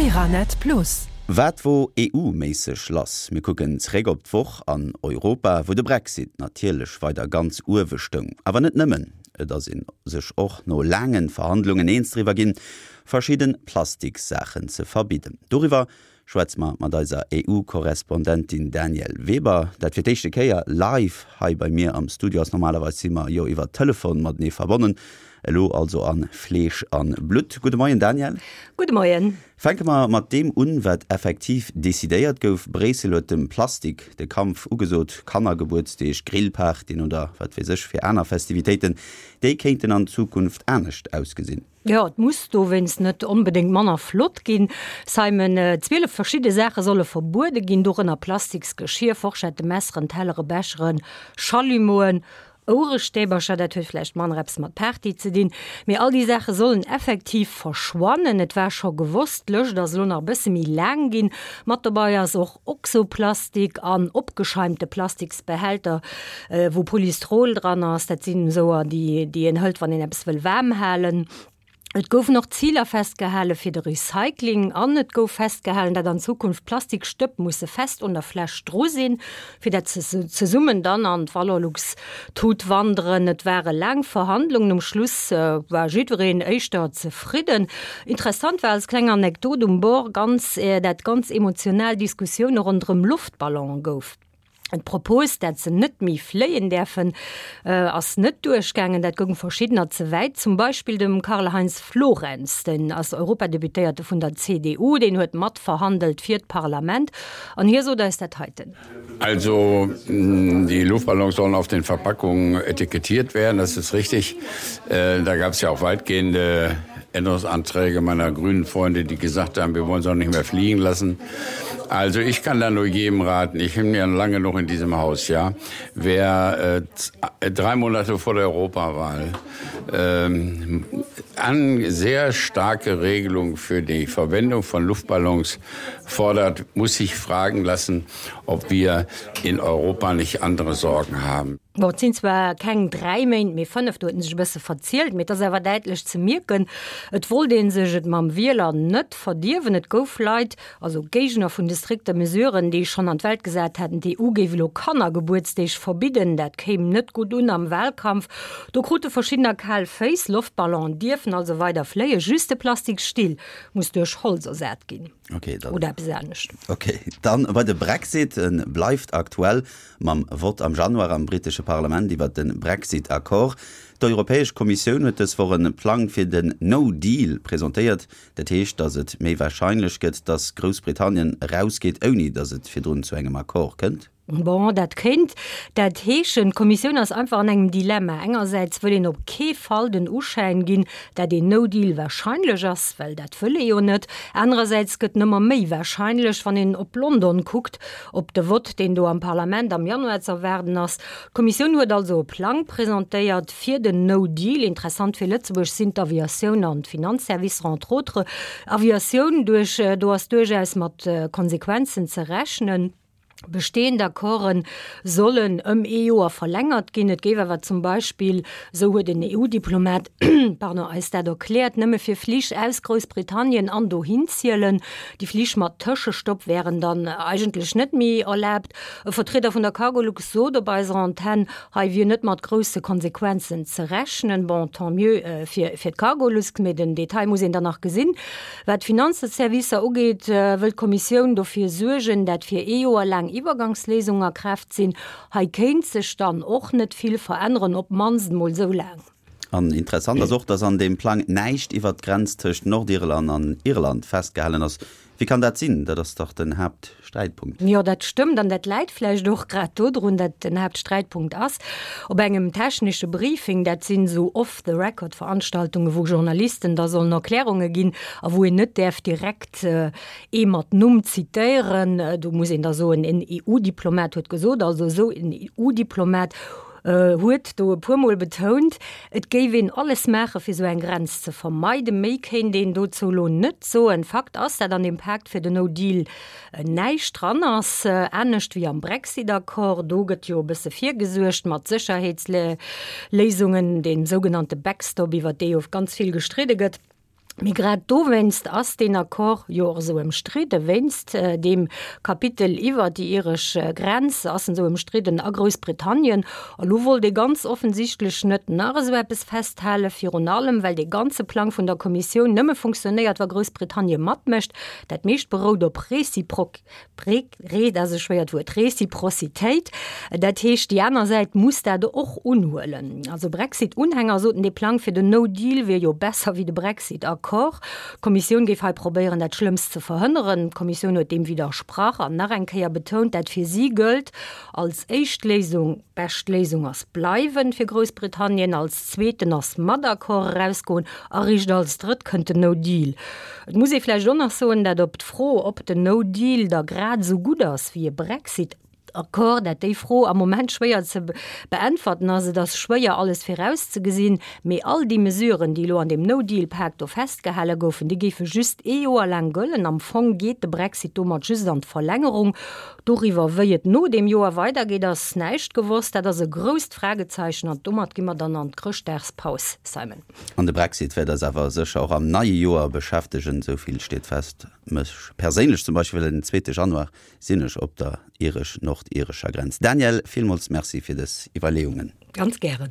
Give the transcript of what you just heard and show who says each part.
Speaker 1: Euranet Plus.
Speaker 2: Wat wor EU-méisseg lass? Mir kucken zeréck op d'Woch an Europa, wou de Brexit natierlech weider ganz uewe stoung. Awer net nëmmen, et ass ee sech och no laange Verhandlungen eens driwwer ginn, verschidde Plastikssaachen ze verbidden. Doriwwer schwätze mer mat eiser EU-Korrespondentin Danièle Weber, dat fir d'éischte Kéier live hei bei mir am Studio ass. Normalerweis si mer jo iwwer Telefon matenee verbonnen, elo also a Fleesch a Blutt. Gudde Moien Danièle.
Speaker 3: Gudde Moien.
Speaker 2: Fänke mer mat deem un, wat effektiv decidéiert gouf. Bréissel huet dem Plastik de Kampf ugesot. Kannergebuertsdeeg, Grillpartyen oder wat weess ech fir aner Festivitéiten, déi kéinten an Zukunft anescht ausgesinn.
Speaker 3: Jo, et muss dowéinst net onbedéngt manner flott ginn, Simon. 12 verschidde Saache solle verbuede ginn, dorënner plastiks Geschir, Forschette, Messeren, Tellere, Becheren, Schallimoen, Ouerestäbercher. Dat huet vläicht manner eppes mat Party ze dinn, mee all déi Saache sollen effektiv verschwannen. Et war scho gewosst, d'Lëscht ass elo nach e bësse méi laang ginn. Mat dobei ass och Oxoplastik an opgescheimte Plastiksbehälter, wou Polystrol dran ass. Dat sinn esouer, déi déi een hëlt, wann een eppes wëll waarm halen. Et goufen och Ziler festgehale fir de Recycling an et gouf festgehalen, dat an Zukunft Plastikstëpp musse fest un der Fläsch dru sinn, fir dat se zesummen dann an d'Valorlux-Tut wanderen. Et ware laang Verhandlungen, um Schluss war jiddwereen éischter zefridden. Interessant war als kleng Anekdot um Bord ganz, dat ganz emotional Diskussioune ronderëm Loftballone gouf. D'Propos, dat se net méi fléien däerfen, ass net duerchgaangen. Dat goung verschiddener ze wäit, zum Beispill dem Karl-Heinz Florenz. Den ass Europadeputéierte vun der CDU, deen huet matverhandelt fir d'Parlament an hie sot eis dat heiten.
Speaker 4: Also die Luftballons sollen auf den Verpackungen etikettiert werden, das ist richtig. Da gab es ja auch weitgehende Änderungsanträge meiner grünen Freunde, die gesagt haben, wir wollen sie auch nicht mehr fliegen lassen. Also ich kann da nur jedem raten, ich bin ja lange noch in diesem Haus, ja. Wer äh, drei Monate vor der Europawahl ähm, an sehr starke Regelung für die Verwendung von Luftballons fordert, muss sich fragen lassen, ob wir in Europa nicht andere Sorgen haben.
Speaker 3: Bon, et sinn zwar keng 3 Méint, mee 5, do huet en sech e bësse verzielt, mee et ass awer däitlech ze mierken, et wollt ee sech et mam Wieler net verdierwen. Et gouf Leit, also Géigner vun de strikte Mesuren, déi schonn an d'Welt gesat haten, d'EU géif elo Kannergebuertsdeeg verbidden, dat kéim net gutt un am Wahlkampf. Do krute verschiddener kal Féiss. Loftballonen dierfen also weider fléien, just de Plastiksstill muss duerch Holz ersat ginn.
Speaker 2: Okay, dann,
Speaker 3: Oder eppes anescht.
Speaker 2: Okay, dann bei de Brexit, en bleift aktuell mam Vott am Januar am brittesche Parlament iwwert de Brexit-Accord. D'Europäesch Kommissioun huet dës Woch e Plang fir den No Deal presentéiert. Dat heescht, datt et méi warscheinlech gëtt, datt Groussbritannien erausgeet, ouni datt et virdrun zu engem Accord kënnt.
Speaker 3: Bon, dat kéint dat heeschen. D'Kommissioun ass einfach an engem Dilemma. Engersäits wëll een op kee Fall den Uschäin ginn, dat een No Deal warscheinlech ass, well dat wëll ee jo net. Anerersäits gëtt en ëmmer méi warscheinlech, wann een op London kuckt, op de Vott, deen do am Parlament am Januar z'erwaarden ass. D'Kommissioun huet also e Plang presentéiert fir den No Deal. Interessant fir Lëtzebuerg sinn d'Aviatioun an d'Finanzservicer, entre autres. Aviatioun, duerch, do ass duerchaus mat Konsequenzen ze rechnen. Bestehend Accorden sollen ëm ee Joer verlängert ginn. Et géif awer zum Beispill, esou huet en EU-Diplomat, pardon, eis dat erkläert, nëmme fir Flich aus Groussbritannien an dohin zielen. Déi Flich mat Tëschestopp wären dann eigentlech net méi erlaabt. E Vertrieder vun der Cargolux sot op eiser Antenn, hei wier net mat grousse Konsequenzen ze rechnen. Bon, tant mieux fir d'Cargolux, mee den Detail muss een dann nach gesinn. Wat d'Finanzservicer ugeet, wëll d'Kommissioun dofir suergen, dat fir ee Joer laang Iwwergangsléisungen a Kraaft sinn. Hei kéint sech dann och net vill veränneren, op d'mannst emol esou laang.
Speaker 2: An interessant ass och, datt an deem Plang näischt iwwert d'Grenz tëscht Nordirland an Irland festgehalen ass. Wéi kann dat sinn? Dat ass dach den Haaptsträitpunkt.
Speaker 3: Jo, dat stëmmt. An dat läit vläicht och grad dodrun, dat den Haaptsträitpunkt ass. Op engem technesche Briefing, dat sinn esou Off-the-record-Veranstaltungen, wou Journalisten da sollen Erklärunge ginn a wou een net däerf direkt ee mat Numm zitéieren, do muss een da soen, en EU-Diplomat huet gesot, also esou en EU-Diplomat huet do e puermol betount, et géif een alles maache fir esou eng Grenz ze vermeiden. Méi kéint een dozou elo net soen. Fakt ass, dat an deem Pakt fir den No Deal näischt dran ass, anescht wéi am Brexit-Accord. Do gëtt jo e bësse virgesuergt mat Sécherheetsléisungen, deem sougenannte Backstop, iwwer dee jo ganz vill gestridde gëtt. Mee grad dowéinst ass deen Accord jo och esou ëmstridden, wéinst deem Kapitel iwwer déi iresch Grenz ass en esou ëmstridden a Groussbritannien. A lo wollt ee ganz offensichtlech net nach esou eppes festhalen, virun allem well dee ganze Plang vun der Kommissioun nëmme funktionéiert, wa Groussbritannien matmécht. Dat meescht berout op Réciproc. Re, dat ass e schwéiert Wuert, Reciprocitéit. Dat heescht, déi aner Säit muss dat och unhuelen. Also Brexit-Unhänger soten, dee Plang fir den No Deal wier jo besser wéi de Brexit-Accord. D'Kommissioun géif hei probéieren, dat Schlëmmst ze verhënneren. D'Kommissioun huet deem widdersprach an nach eng Kéier betount, dat fir si gëllt als éischt Léisung, bescht Léisung ass bleiwen fir Groussbritannien, als zweeten ass mat Accord erausgoen a riicht als drëtt kënnt den No Deal. Et muss ee vläicht och nach soen, dat op d'Fro, ob den No Deal da grad esou gutt ass wéi e Brexit-Accord, dat déi Fro am Moment schwéier ze beäntwerten ass. Et ass schwéier alles virauszegesinn, mee all déi Mesuren, déi elo an deem No Deal-Pak do festgehale goufen, déi géife just ee Joer laang gëllen. Am Fong geet de Brexit domat just an d'Verlängerung. Doriwwer, wéi et no deem Joer weidergeet, ass näischt gewosst. Dat ass e grousst Fragezeichen an domat gi mer dann an d'Chrëschtdagspaus, Simon.
Speaker 2: An de Brexit wäert eis awer sécher och am neie Joer beschäftegen, esou vill steet fest. Mech perséinlech zum Beispill, well den zweete Januar sinn ech op der iresch-nordirescher Grenz. Danièle, villmools Merci fir dës Iwwerleeungen.
Speaker 3: Ganz gären.